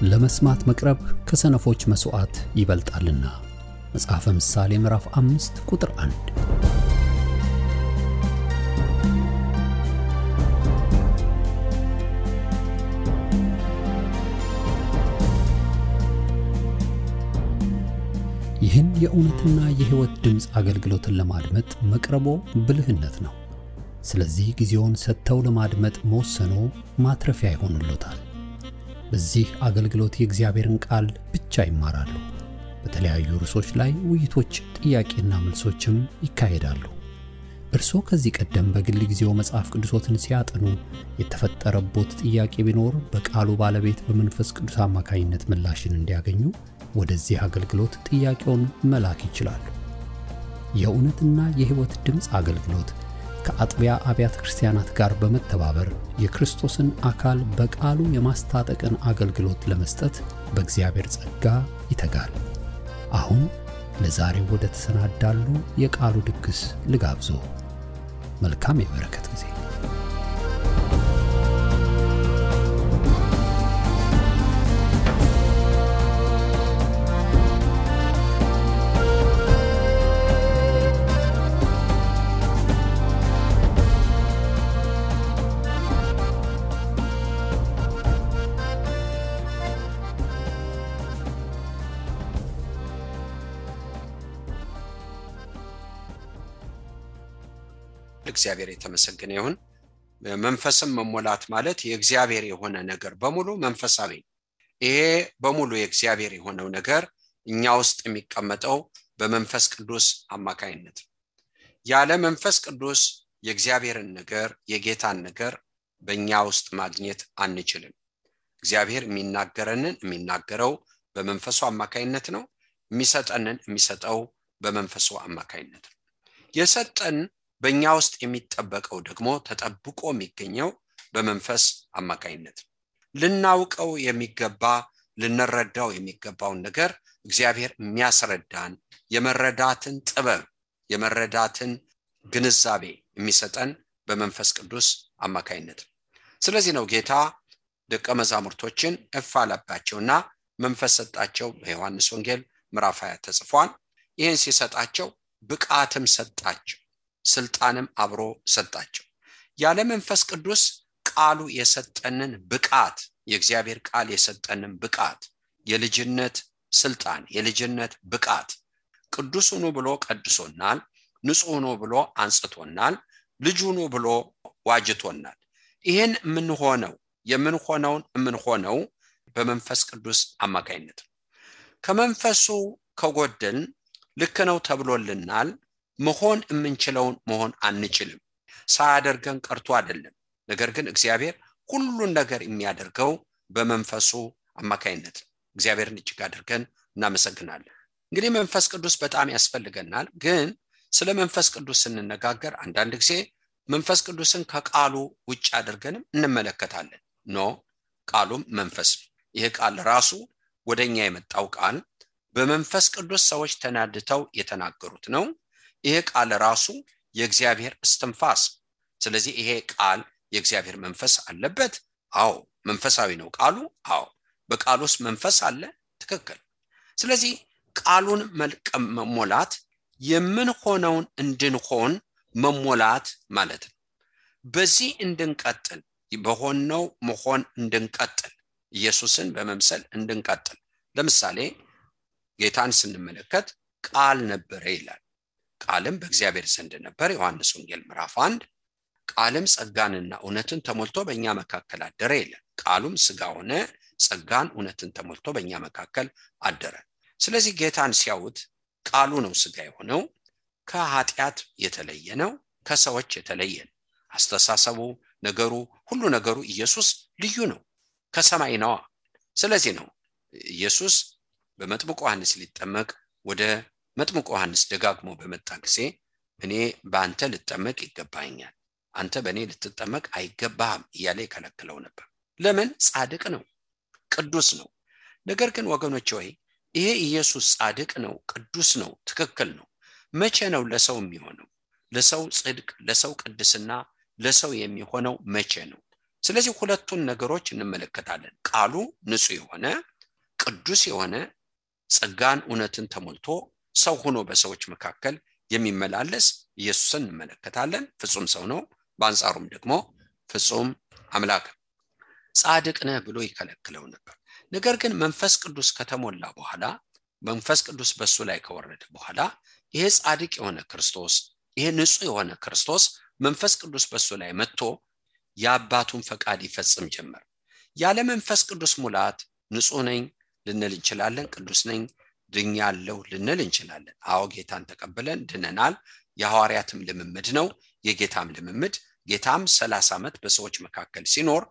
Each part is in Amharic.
ለመስማት መቅረብ ከሰነፎች መስዋዕት ይበልጣልና። መጽሐፈ ምሳሌ ምዕራፍ 5 ቁጥር 1። ይህን የእውነትና የሕይወት ድምጽ አገልግሎትን ለማድመጥ መቅረቦ ብልህነት ነው። ስለዚህ ጊዜውን ሰጥተው ለማድመጥ መወሰኖ ማትረፊያ ይሆንልዎታል። በዚህ አገልግሎት የእግዚአብሔርን ቃል ብቻ ይማራሉ። በተለያዩ ርዕሶች ላይ ውይይቶች፣ ጥያቄና መልሶችም ይካሄዳሉ። እርስዎ ከዚህ ቀደም በግል ጊዜው መጽሐፍ ቅዱሶትን ሲያጠኑ የተፈጠረቦት ጥያቄ ቢኖር በቃሉ ባለቤት በመንፈስ ቅዱስ አማካኝነት ምላሽን እንዲያገኙ ወደዚህ አገልግሎት ጥያቄውን መላክ ይችላሉ። የእውነትና የሕይወት ድምጽ አገልግሎት ከአጥቢያ አብያተ ክርስቲያናት ጋር በመተባበር የክርስቶስን አካል በቃሉ የማስታጠቅን አገልግሎት ለመስጠት በእግዚአብሔር ጸጋ ይተጋል። አሁን ለዛሬው ወደ ተሰናዳሉ የቃሉ ድግስ ልጋብዞ። መልካም የበረከት ጊዜ። እግዚአብሔር የተመሰገነ ይሁን። መንፈስም መሞላት ማለት የእግዚአብሔር የሆነ ነገር በሙሉ መንፈሳዊ። ይሄ በሙሉ የእግዚአብሔር የሆነው ነገር እኛ ውስጥ የሚቀመጠው በመንፈስ ቅዱስ አማካይነት። ያለ መንፈስ ቅዱስ የእግዚአብሔርን ነገር የጌታን ነገር በእኛ ውስጥ ማግኘት አንችልም። እግዚአብሔር የሚናገረው በመንፈሱ አማካይነት ነው። የሚሰጠው በመንፈሱ አማካይነት ነው። የሰጠን በእኛ ውስጥ የሚጠበቀው ደግሞ ተጠብቆ የሚገኘው በመንፈስ አማካይነት። ልናውቀው የሚገባ ልንረዳው የሚገባውን ነገር እግዚአብሔር የሚያስረዳን የመረዳትን ጥበብ የመረዳትን ግንዛቤ የሚሰጠን በመንፈስ ቅዱስ አማካይነት። ስለዚህ ነው ጌታ ደቀ መዛሙርቶችን እፍ አለባቸውና መንፈስ ሰጣቸው። በዮሐንስ ወንጌል ምዕራፍ 20 ተጽፏል። ይህን ሲሰጣቸው ብቃትም ሰጣቸው፣ ስልጣንም አብሮ ሰጣቸው። ያለ መንፈስ ቅዱስ ቃሉ የሰጠንን ብቃት የእግዚአብሔር ቃል የሰጠንን ብቃት የልጅነት ስልጣን የልጅነት ብቃት ቅዱስ ሆኖ ብሎ ቀድሶናል፣ ንጹህ ሆኖ ብሎ አንጽቶናል፣ ልጅ ሆኖ ብሎ ዋጅቶናል። ይሄን የምንሆነው በመንፈስ ቅዱስ አማካይነት። ከመንፈሱ ከጎደልን ልክ ነው ተብሎልናል መሆን የምንችለውን መሆን አንችልም። ሳያደርገን ቀርቶ አይደለም። ነገር ግን እግዚአብሔር ሁሉን ነገር የሚያደርገው በመንፈሱ አማካይነት። እግዚአብሔርን እጅግ አድርገን እናመሰግናለን። እንግዲህ መንፈስ ቅዱስ በጣም ያስፈልገናል። ግን ስለ መንፈስ ቅዱስ ስንነጋገር አንዳንድ ጊዜ መንፈስ ቅዱስን ከቃሉ ውጭ አድርገንም እንመለከታለን። ቃሉም መንፈስ ነው። ይሄ ቃል ራሱ ወደኛ የመጣው ቃል በመንፈስ ቅዱስ ሰዎች ተናድተው የተናገሩት ነው። ይሄ ቃል ራሱ የእግዚአብሔር እስትንፋስ። ስለዚህ ይሄ ቃል የእግዚአብሔር መንፈስ አለበት። አዎ መንፈሳዊ ነው ቃሉ። አዎ በቃሉ ውስጥ መንፈስ አለ። ትክክል። ስለዚህ ቃሉን መሞላት የምንሆነውን እንድንሆን መሞላት ማለት ነው። በዚህ እንድንቀጥል በሆነው መሆን እንድንቀጥል ኢየሱስን በመምሰል እንድንቀጥል። ለምሳሌ ጌታን ስንመለከት ቃል ነበረ ይላል። ቃልም በእግዚአብሔር ዘንድ ነበር። ዮሐንስ ወንጌል ምዕራፍ 1። ቃልም ጸጋንና እውነትን ተሞልቶ በእኛ መካከል አደረ ይላል። ቃሉም ሥጋ ሆነ፣ ጸጋን እውነትን ተሞልቶ በእኛ መካከል አደረ። ስለዚህ ጌታን ሲያዩት ቃሉ ነው ሥጋ የሆነው። ከኃጢአት የተለየ ነው፣ ከሰዎች የተለየ ነው። አስተሳሰቡ፣ ነገሩ፣ ሁሉ ነገሩ ኢየሱስ ልዩ ነው፣ ከሰማይ ነው። ስለዚህ ነው ኢየሱስ በመጥምቁ ዮሐንስ ሊጠመቅ ወደ መጥምቁ ዮሐንስ ደጋግሞ በመጣ ጊዜ እኔ በአንተ ልጠመቅ ይገባኛል፣ አንተ በእኔ ልትጠመቅ አይገባህም እያለ ይከለክለው ነበር። ለምን? ጻድቅ ነው፣ ቅዱስ ነው። ነገር ግን ወገኖች ሆይ ይሄ ኢየሱስ ጻድቅ ነው፣ ቅዱስ ነው፣ ትክክል ነው። መቼ ነው ለሰው የሚሆነው? ለሰው ጽድቅ፣ ለሰው ቅድስና፣ ለሰው የሚሆነው መቼ ነው? ስለዚህ ሁለቱን ነገሮች እንመለከታለን። ቃሉ ንጹህ የሆነ ቅዱስ የሆነ ጸጋን እውነትን ተሞልቶ ሰው ሆኖ በሰዎች መካከል የሚመላለስ ኢየሱስን እንመለከታለን። ፍጹም ሰው ነው፣ በአንጻሩም ደግሞ ፍጹም አምላክ። ጻድቅ ነህ ብሎ ይከለክለው ነበር። ነገር ግን መንፈስ ቅዱስ ከተሞላ በኋላ መንፈስ ቅዱስ በሱ ላይ ከወረደ በኋላ ይሄ ጻድቅ የሆነ ክርስቶስ ይሄ ንጹህ የሆነ ክርስቶስ መንፈስ ቅዱስ በሱ ላይ መጥቶ የአባቱን ፈቃድ ይፈጽም ጀመር። ያለ መንፈስ ቅዱስ ሙላት ንጹህ ነኝ ልንል እንችላለን፣ ቅዱስ ነኝ ድኛለሁ ልንል እንችላለን። አዎ ጌታን ተቀበለን ድነናል። የሐዋርያትም ልምምድ ነው፣ የጌታም ልምምድ። ጌታም 30 ዓመት በሰዎች መካከል ሲኖር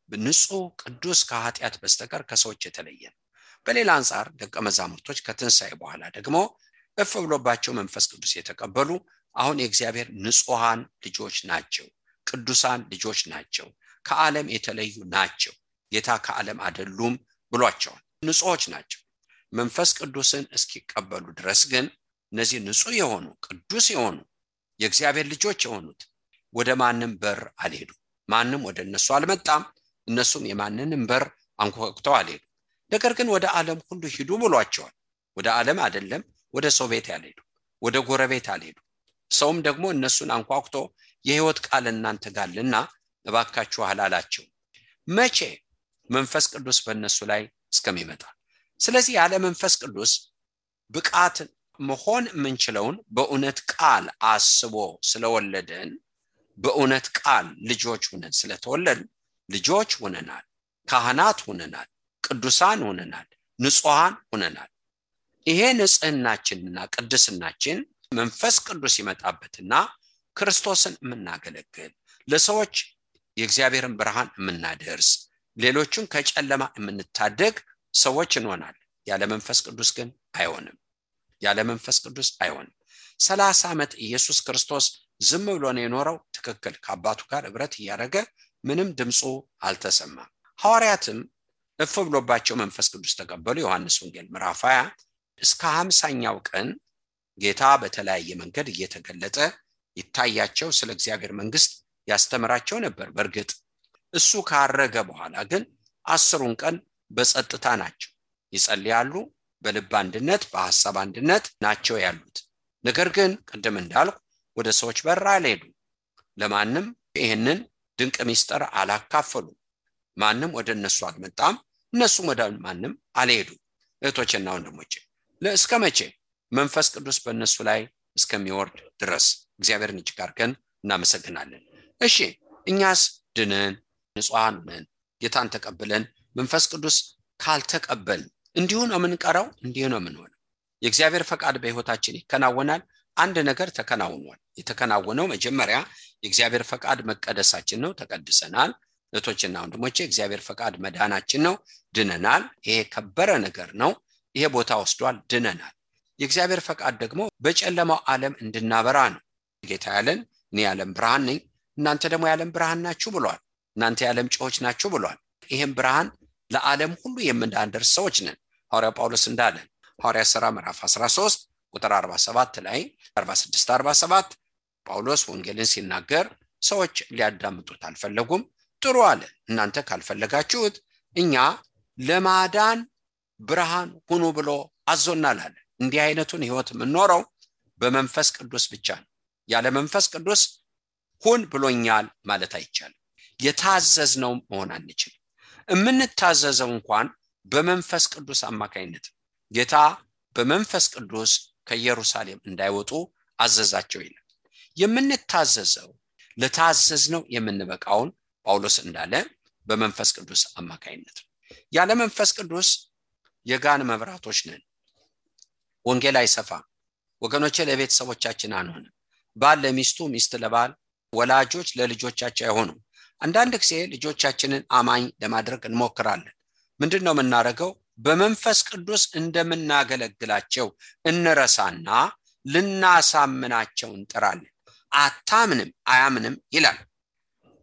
ንጹህ ቅዱስ ከኃጢአት በስተቀር ከሰዎች የተለየ ነው። በሌላ አንጻር ደቀ መዛሙርቶች ከትንሣኤ በኋላ ደግሞ እፍ ብሎባቸው መንፈስ ቅዱስ የተቀበሉ አሁን የእግዚአብሔር ንጹሃን ልጆች ናቸው፣ ቅዱሳን ልጆች ናቸው፣ ከዓለም የተለዩ ናቸው። ጌታ ከዓለም አይደሉም ብሏቸዋል። ንጹሆች ናቸው። መንፈስ ቅዱስን እስኪቀበሉ ድረስ ግን እነዚህ ንጹህ የሆኑ ቅዱስ የሆኑ የእግዚአብሔር ልጆች የሆኑት ወደ ማንም በር አልሄዱም። ማንም ወደ እነሱ አልመጣም። እነሱም የማንንም በር አንኳኩተው አልሄዱ። ነገር ግን ወደ ዓለም ሁሉ ሂዱ ብሏቸዋል። ወደ ዓለም አይደለም ወደ ሰው ቤት ያልሄዱ፣ ወደ ጎረቤት አልሄዱ። ሰውም ደግሞ እነሱን አንኳኩቶ የሕይወት ቃል እናንተ ጋርልና እባካችሁ አላላቸው። መቼ? መንፈስ ቅዱስ በእነሱ ላይ እስከሚመጣ። ስለዚህ ያለ መንፈስ ቅዱስ ብቃት መሆን የምንችለውን በእውነት ቃል አስቦ ስለወለደን በእውነት ቃል ልጆች ሆነን ስለተወለድን ልጆች ሆነናል፣ ካህናት ሆነናል፣ ቅዱሳን ሆነናል፣ ንጹሃን ሆነናል። ይሄ ንጽህናችንና ቅድስናችን መንፈስ ቅዱስ ይመጣበትና ክርስቶስን የምናገለግል ለሰዎች የእግዚአብሔርን ብርሃን የምናደርስ ሌሎችን ከጨለማ የምንታደግ ሰዎች እንሆናለን። ያለ መንፈስ ቅዱስ ግን አይሆንም። ያለ መንፈስ ቅዱስ አይሆንም። 30 ዓመት ኢየሱስ ክርስቶስ ዝም ብሎ ነው የኖረው። ትክክል። ከአባቱ ጋር ህብረት እያደረገ ምንም ድምፁ አልተሰማም። ሐዋርያትም እፍ ብሎባቸው መንፈስ ቅዱስ ተቀበሉ። ዮሐንስ ወንጌል ምዕራፍ 20 እስከ 50ኛው ቀን ጌታ በተለያየ መንገድ እየተገለጠ ይታያቸው፣ ስለ እግዚአብሔር መንግስት ያስተምራቸው ነበር። በእርግጥ እሱ ካረገ በኋላ ግን 10ሩን ቀን በጸጥታ ናቸው። ይጸልያሉ፣ በልብ አንድነት በሐሳብ አንድነት ናቸው ያሉት። ነገር ግን ቅድም እንዳልኩ ወደ ሰዎች በር አልሄዱም። ለማንም ይሄንን ድንቅ ሚስጥር አላካፈሉ። ማንም ወደ እነሱ አልመጣም፣ እነሱም ወደ ማንም አልሄዱም። እህቶችና ወንድሞቼ ለእስከ መቼ? መንፈስ ቅዱስ በእነሱ ላይ እስከሚወርድ ድረስ። እግዚአብሔርን እጅግ አድርገን እናመሰግናለን። እሺ እኛስ ድነን ንጹሃን ነን፣ ጌታን ተቀብለን መንፈስ ቅዱስ ካልተቀበል እንዲሁ ነው የምንቀረው፣ እንዲሁ ነው የምንሆነው። የእግዚአብሔር ፈቃድ በሕይወታችን ይከናወናል። አንድ ነገር ተከናውኗል። የተከናወነው መጀመሪያ የእግዚአብሔር ፈቃድ መቀደሳችን ነው፣ ተቀድሰናል። እህቶችና ወንድሞቼ የእግዚአብሔር ፈቃድ መዳናችን ነው፣ ድነናል። ይሄ ከበረ ነገር ነው። ይሄ ቦታ ወስዷል፣ ድነናል። የእግዚአብሔር ፈቃድ ደግሞ በጨለማው ዓለም እንድናበራ ነው። ጌታ ያለን እኔ የዓለም ብርሃን ነኝ፣ እናንተ ደግሞ የዓለም ብርሃን ናችሁ ብሏል። እናንተ የዓለም ጨዎች ናችሁ ብሏል። ይሄን ብርሃን ለዓለም ሁሉ የምናደርስ ሰዎች ነን። ሐዋርያ ጳውሎስ እንዳለ ሐዋርያት ሥራ ምዕራፍ 13 ቁጥር 47 ላይ 46 47 ጳውሎስ ወንጌልን ሲናገር ሰዎች ሊያዳምጡት አልፈለጉም። ጥሩ አለ፣ እናንተ ካልፈለጋችሁት እኛ ለማዳን ብርሃን ሁኑ ብሎ አዞናል አለ። እንዲህ አይነቱን ህይወት የምንኖረው በመንፈስ ቅዱስ ብቻ ነው። ያለ መንፈስ ቅዱስ ሁን ብሎኛል ማለት አይቻልም። የታዘዝነው መሆን አንችልም። የምንታዘዘው እንኳን በመንፈስ ቅዱስ አማካይነት ጌታ በመንፈስ ቅዱስ ከኢየሩሳሌም እንዳይወጡ አዘዛቸው ይላል። የምንታዘዘው ለታዘዝነው የምንበቃውን ጳውሎስ እንዳለ በመንፈስ ቅዱስ አማካይነት። ያለ መንፈስ ቅዱስ የጋን መብራቶች ነን። ወንጌል አይሰፋም። ወገኖቼ ለቤተሰቦቻችን አንሆንም። ባል ለሚስቱ፣ ሚስት ለባል፣ ወላጆች ለልጆቻቸው አይሆኑም። አንዳንድ ጊዜ ልጆቻችንን አማኝ ለማድረግ እንሞክራለን። ምንድነው የምናደርገው? በመንፈስ ቅዱስ እንደምናገለግላቸው እንረሳና ልናሳምናቸው እንጥራለን። አታምንም አያምንም ይላል።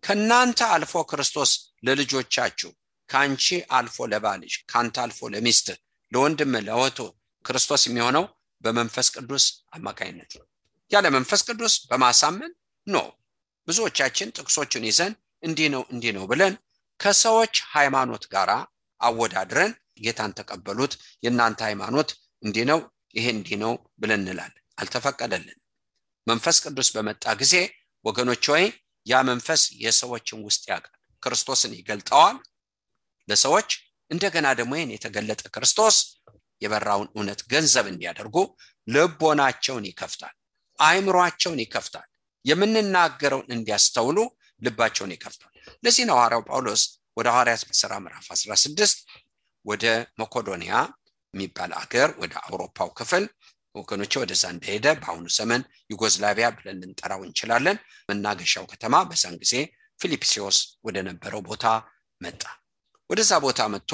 ከናንተ አልፎ ክርስቶስ ለልጆቻችሁ፣ ካንቺ አልፎ ለባልሽ፣ ካንተ አልፎ ለሚስት፣ ለወንድም ለወቶ ክርስቶስ የሚሆነው በመንፈስ ቅዱስ አማካይነት ነው። ያለ መንፈስ ቅዱስ በማሳመን ነው። ብዙዎቻችን ጥቅሶችን ይዘን እንዲህ ነው ብለን ከሰዎች ሃይማኖት ጋር አወዳድረን ጌታን ተቀበሉት የናንተ ሃይማኖት እንዲህ ነው ይሄ እንዲህ ነው ብለን እንላለን። አልተፈቀደልን። መንፈስ ቅዱስ በመጣ ጊዜ ወገኖች ሆይ ያ መንፈስ የሰዎችን ውስጥ ያውቃል፣ ክርስቶስን ይገልጣዋል ለሰዎች። እንደገና ደግሞ ይሄን የተገለጠ ክርስቶስ የበራውን እውነት ገንዘብ እንዲያደርጉ ልቦናቸውን ይከፍታል፣ አእምሮአቸውን ይከፍታል፣ የምንናገረውን እንዲያስተውሉ ልባቸውን ይከፍታል። ለዚህ ነው ሐዋርያው ጳውሎስ ወደ ሐዋርያት ሥራ ምዕራፍ 16 ወደ መቄዶንያ የሚባል አገር ወደ አውሮፓው ክፍል ወገኖች ወደዛ እንደሄደ በአሁኑ ዘመን ዩጎዝላቪያ ብለን ልንጠራው እንችላለን። መናገሻው ከተማ በዛን ጊዜ ፊልጵስዩስ ወደ ነበረው ቦታ መጣ። ወደዛ ቦታ መጥቶ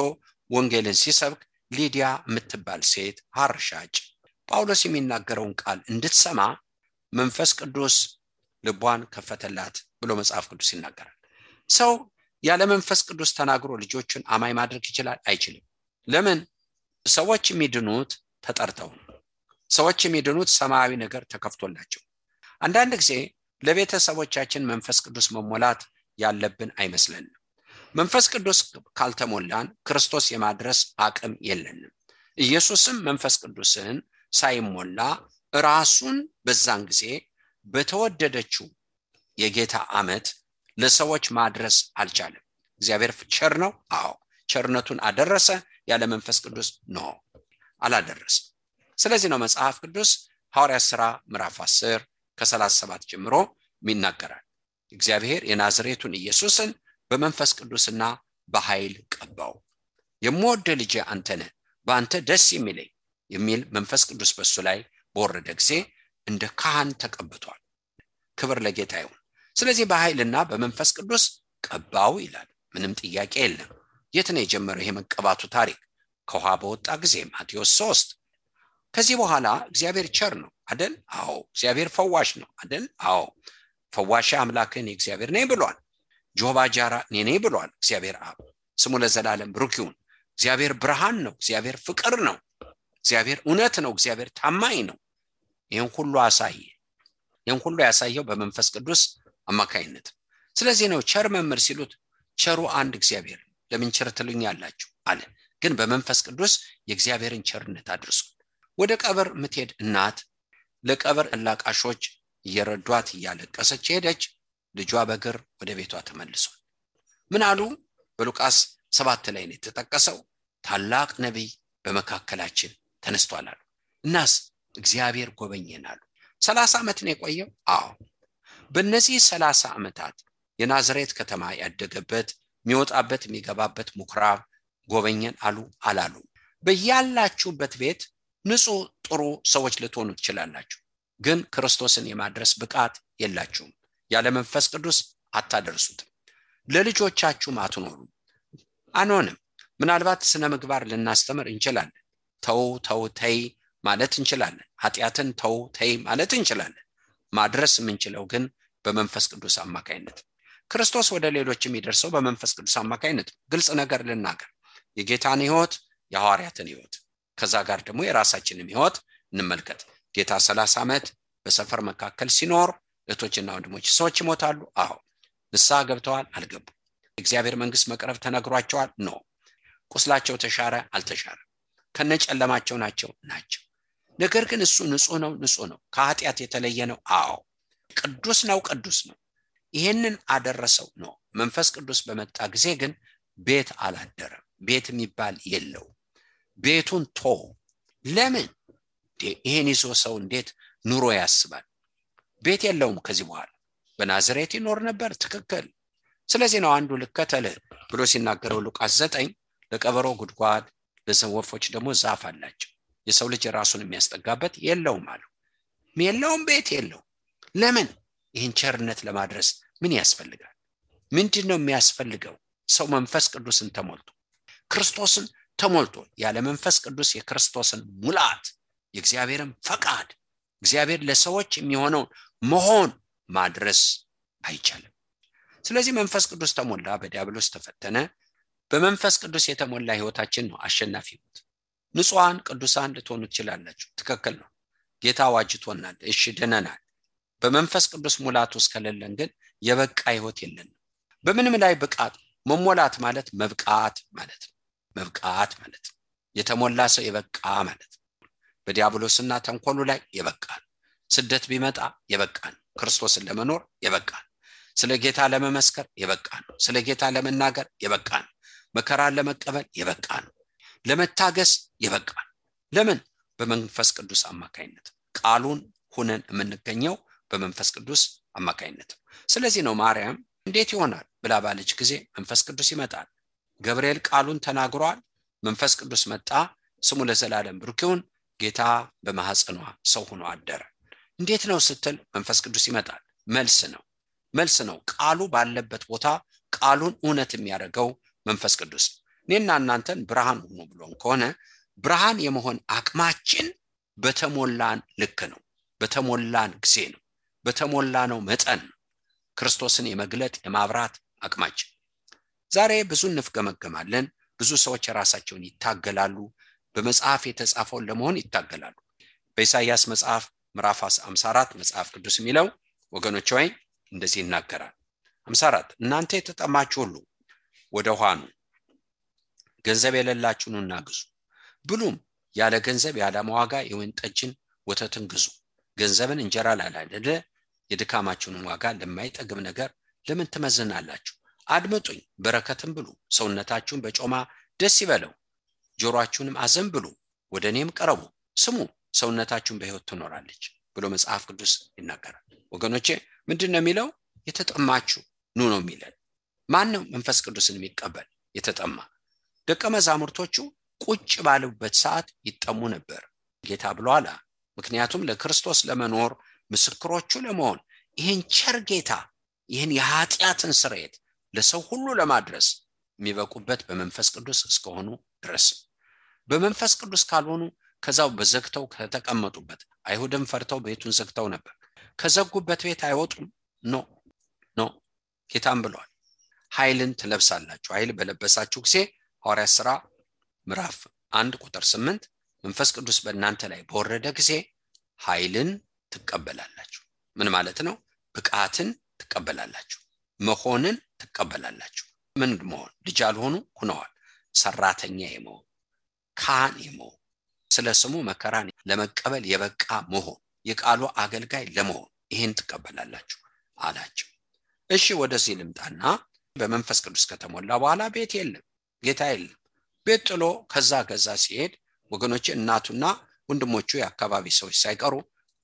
ወንጌልን ሲሰብክ ሊዲያ የምትባል ሴት ሐር ሻጭ ጳውሎስ የሚናገረውን ቃል እንድትሰማ መንፈስ ቅዱስ ልቧን ከፈተላት ብሎ መጽሐፍ ቅዱስ ይናገራል። ሰው ያለ መንፈስ ቅዱስ ተናግሮ ልጆቹን አማኝ ማድረግ ይችላል? አይችልም። ለምን? ሰዎች የሚድኑት ተጠርተው፣ ሰዎች የሚድኑት ሰማያዊ ነገር ተከፍቶላቸው። አንዳንድ ጊዜ ለቤተሰቦቻችን መንፈስ ቅዱስ መሞላት ያለብን አይመስለንም። መንፈስ ቅዱስ ካልተሞላን ክርስቶስ የማድረስ አቅም የለንም። ኢየሱስም መንፈስ ቅዱስን ሳይሞላ ራሱን በዛን ጊዜ በተወደደችው የጌታ ዓመት ለሰዎች ማድረስ አልቻለም። እግዚአብሔር ቸር ነው። አዎ ቸርነቱን አደረሰ። ያለ መንፈስ ቅዱስ ነው አላደረሰ። ስለዚህ ነው መጽሐፍ ቅዱስ ሐዋርያት ሥራ ምዕራፍ 10 ከ37 ጀምሮ ይናገራል። እግዚአብሔር የናዝሬቱን ኢየሱስን በመንፈስ ቅዱስና በኃይል ቀባው። የምወደው ልጄ አንተ ነህ፣ በአንተ ደስ የሚለኝ የሚል መንፈስ ቅዱስ በሱ ላይ በወረደ ጊዜ እንደ ካህን ተቀብቷል። ክብር ለጌታ ይሁን። ስለዚህ በኃይልና በመንፈስ ቅዱስ ቀባው ይላል። ምንም ጥያቄ የለም። የት ነው የጀመረው ይሄ መቀባቱ ታሪክ? ከውሃ በወጣ ጊዜ ማቴዎስ 3። ከዚህ በኋላ እግዚአብሔር ቸር ነው አይደል? አዎ። እግዚአብሔር ፈዋሽ ነው አይደል? አዎ። ፈዋሽ አምላክን እግዚአብሔር ነኝ ብሏል። ጆባ ጃራ ነኝ ብሏል እግዚአብሔር አብ። ስሙ ለዘላለም ብሩክ ይሁን። እግዚአብሔር ብርሃን ነው፣ እግዚአብሔር ፍቅር ነው፣ እግዚአብሔር እውነት ነው፣ እግዚአብሔር ታማኝ ነው። ይሄን ሁሉ አሳየ። ይሄን ሁሉ ያሳየው በመንፈስ ቅዱስ አማካይነት። ስለዚህ ነው ቸር መምህር ሲሉት ቸሩ አንድ እግዚአብሔር ለምን ቸር ትሉኛላችሁ አለ። ግን በመንፈስ ቅዱስ የእግዚአብሔርን ቸርነት አድርሶ ወደ ቀብር ምትሄድ እናት ለቀብር አላቃሾች እየረዷት እያለቀሰች ሄደች። ልጇ በእግር ወደ ቤቷ ተመልሷል። ምን አሉ? በሉቃስ 7 ላይ ነው የተጠቀሰው። ታላቅ ነቢይ በመካከላችን ተነስቷል አሉ። እናስ እግዚአብሔር ጎበኘን አሉ። 30 ዓመት ነው የቆየው። አዎ። በእነዚህ 30 ዓመታት የናዝሬት ከተማ ያደገበት የሚወጣበት የሚገባበት ምኩራብ ጎበኘን አሉ አላሉ? በያላችሁበት ቤት ንጹህ ጥሩ ሰዎች ልትሆኑ ትችላላችሁ፣ ግን ክርስቶስን የማድረስ ብቃት የላችሁም። ያለ መንፈስ ቅዱስ አታደርሱትም። ለልጆቻችሁም አትኖሩም። አንሆንም። ምናልባት ስነ ምግባር ልናስተምር እንችላለን። ተው ተው ተይ ማለት እንችላለን። ኃጢአትን ተው ተይ ማለት እንችላለን። ማድረስ የምንችለው ግን በመንፈስ ቅዱስ አማካይነት። ክርስቶስ ወደ ሌሎች የሚደርሰው በመንፈስ ቅዱስ አማካይነት። ግልጽ ነገር ልናገር፣ የጌታን ሕይወት የሐዋርያትን ሕይወት ከዛ ጋር ደግሞ የራሳችንን ሕይወት እንመልከት። ጌታ 30 ዓመት በሰፈር መካከል ሲኖር እህቶችና ወንድሞች ሰዎች ይሞታሉ። አዎ። ንስሐ ገብተዋል? አልገቡም። እግዚአብሔር መንግስት መቅረብ ተነግሯቸዋል? ኖ። ቁስላቸው ተሻረ? አልተሻረ። ከነጨለማቸው ናቸው። ነገር ግን እሱ ንጹህ ነው። ከኃጢአት የተለየ ነው። አዎ። ቅዱስ ነው። ይሄንን አደረሰው ነው። መንፈስ ቅዱስ በመጣ ጊዜ ግን ቤት አላደረም። ቤት የሚባል የለው። ቤቱን ቶ ለምን? ይሄን ይዞ ሰው እንዴት ኑሮ ያስባል? ቤት የለውም ከዚህ በኋላ። በናዝሬት ይኖር ነበር። ትክክል። ስለዚህ ነው አንዱ ልከተልህ ብሎ ሲናገረው ሉቃስ 9 ለቀበሮ ጉድጓድ ለወፎች ደግሞ ዛፍ አላቸው፣ የሰው ልጅ ራሱን የሚያስጠጋበት የለውም አለው። ቤት የለው። ለምን? ይህን ቸርነት ለማድረስ ምን ያስፈልጋል? ምንድነው የሚያስፈልገው? ሰው መንፈስ ቅዱስን ተሞልቶ ክርስቶስን ተሞልቶ ያለ መንፈስ ቅዱስ የክርስቶስን ሙላት የእግዚአብሔርን ፈቃድ እግዚአብሔር ለሰዎች የሚሆነው መሆን ማድረስ አይቻልም። ስለዚህ መንፈስ ቅዱስ ተሞላ፣ በዲያብሎስ ተፈተነ። በመንፈስ ቅዱስ የተሞላ ህይወታችን ነው አሸናፊ ህይወት። ንጹሃን ቅዱሳን ልትሆኑ ትችላላችሁ። ትክክል ነው። ጌታ ዋጅቶናል። እሺ ደነናል። በመንፈስ ቅዱስ ሙላት ውስጥ ከሌለን ግን የበቃ ህይወት የለንም። በምንም ላይ ብቃት መሞላት ማለት መብቃት ማለት ነው። መብቃት ማለት ነው። የተሞላ ሰው የበቃ ማለት ነው። በዲያብሎስና ተንኮሉ ላይ የበቃ ስደት ቢመጣ የበቃ ክርስቶስን ለመኖር የበቃ ስለ ጌታ ለመመስከር የበቃ ስለ ጌታ ለመናገር የበቃ መከራን ለመቀበል የበቃ ለመታገስ የበቃ ለምን በመንፈስ ቅዱስ አማካይነት ቃሉን ሆነን የምንገኘው በመንፈስ ቅዱስ አማካይነት። ስለዚህ ነው ማርያም እንዴት ይሆናል ብላ ባለች ጊዜ መንፈስ ቅዱስ ይመጣል። ገብርኤል ቃሉን ተናግሯል፣ መንፈስ ቅዱስ መጣ፣ ስሙ ለዘላለም ብሩክ ይሁን፣ ጌታ በማህፀኗ ሰው ሆኖ አደረ። እንዴት ነው ስትል መንፈስ ቅዱስ ይመጣል። መልስ ነው። ቃሉ ባለበት ቦታ ቃሉን እውነት የሚያደርገው መንፈስ ቅዱስ። እኔና እናንተን ብርሃን ሆኖ ብሎን ከሆነ ብርሃን የመሆን አቅማችን በተሞላን ልክ ነው፣ በተሞላን ጊዜ ነው፣ በተሞላነው መጠን ክርስቶስን የመግለጥ የማብራት አቅማችን። ዛሬ ብዙ እንፍገመገማለን። ብዙ ሰዎች ራሳቸውን ይታገላሉ፣ በመጽሐፍ የተጻፈውን ለመሆን ይታገላሉ። በኢሳይያስ መጽሐፍ ምዕራፍ 54 መጽሐፍ ቅዱስ የሚለው ወገኖች ሆይ እንደዚህ ይናገራል። 54 እናንተ የተጠማችሁ ሁሉ ወደ ውሃ ኑ፣ ገንዘብ የሌላችሁ ኑና ግዙ፣ ብሉም ያለ ገንዘብ ያለ ዋጋ የወይን ጠጅን ወተትን ግዙ። ገንዘብን እንጀራ ላላደለ የድካማችሁን ዋጋ ለማይጠግብ ነገር ለምን ትመዝናላችሁ? አድምጡኝ፣ በረከትን ብሉ፣ ሰውነታችሁን በጮማ ደስ ይበለው፣ ጆሮአችሁንም አዘንብሉ፣ ወደ እኔም ቀረቡ፣ ስሙ፣ ሰውነታችሁን በሕይወት ትኖራለች ብሎ መጽሐፍ ቅዱስ ይናገራል። ወገኖቼ ምንድነው የሚለው? የተጠማችሁ ኑ ነው የሚለው። ማን ነው መንፈስ ቅዱስን የሚቀበል? የተጠማ ደቀ መዛሙርቶቹ ቁጭ ባሉበት ሰዓት ይጠሙ ነበር ጌታ ብሏል። ምክንያቱም ለክርስቶስ ለመኖር ምስክሮቹ ለመሆን ይህን ቸር ጌታ ይህን የኃጢአትን ስርየት ለሰው ሁሉ ለማድረስ የሚበቁበት በመንፈስ ቅዱስ እስከሆኑ ድረስ። በመንፈስ ቅዱስ ካልሆኑ ከዛው በዘግተው ከተቀመጡበት አይሁድም ፈርተው ቤቱን ዘግተው ነበር። ከዘጉበት ቤት አይወጡም። ኖ ጌታም ብሏል፣ ኃይልን ትለብሳላችሁ። ኃይል በለበሳችሁ ጊዜ ሐዋርያት ሥራ ምዕራፍ 1 ቁጥር 8 መንፈስ ቅዱስ በእናንተ ላይ በወረደ ጊዜ ኃይልን ትቀበላላችሁ። ምን ማለት ነው? ብቃትን ትቀበላላችሁ፣ መሆንን ትቀበላላችሁ። ምን መሆን? ልጅ አልሆኑ ሆነዋል። ሰራተኛ የመሆን ካህን የመሆን ስለ ስሙ መከራን ለመቀበል የበቃ መሆን የቃሉ አገልጋይ ለመሆን ይሄን ትቀበላላችሁ አላችሁ። እሺ ወደዚህ ልምጣና በመንፈስ ቅዱስ ከተሞላ በኋላ ቤት የለም፣ ጌታ የለም። ቤት ጥሎ ከዛ ሲሄድ ወገኖቼ እናቱና ወንድሞቹ የአካባቢ ሰዎች ሳይቀሩ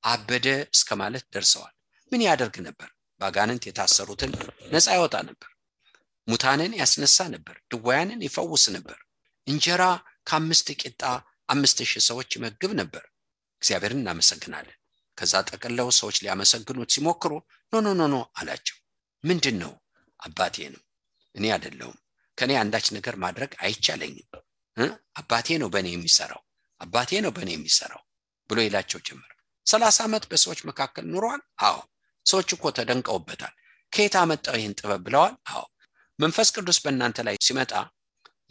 አበደ እስከማለት ደርሰዋል። ምን ያደርግ ነበር? ባጋንንት የታሰሩትን ነፃ ያወጣ ነበር፣ ሙታንን ያስነሳ ነበር፣ ድውያንን ይፈውስ ነበር፣ እንጀራ ከ5 ቂጣ 5000 ሰዎች ይመግብ ነበር። እግዚአብሔርን እናመሰግናለን። ከዛ ጠቅለው ሰዎች ሊያመሰግኑት ሲሞክሩ ኖ አላቸው። ምንድነው? አባቴ ነው፣ እኔ አይደለሁም። ከኔ አንዳች ነገር ማድረግ አይቻለኝም። አባቴ ነው በእኔ የሚሰራው ብሎ ይላቸው ጀመር። 30 ዓመት በሰዎች መካከል ኑሯል። አዎ ሰዎች እኮ ተደንቀውበታል። ከየት አመጣው ይህን ጥበብ ብለዋል። አዎ መንፈስ ቅዱስ በእናንተ ላይ ሲመጣ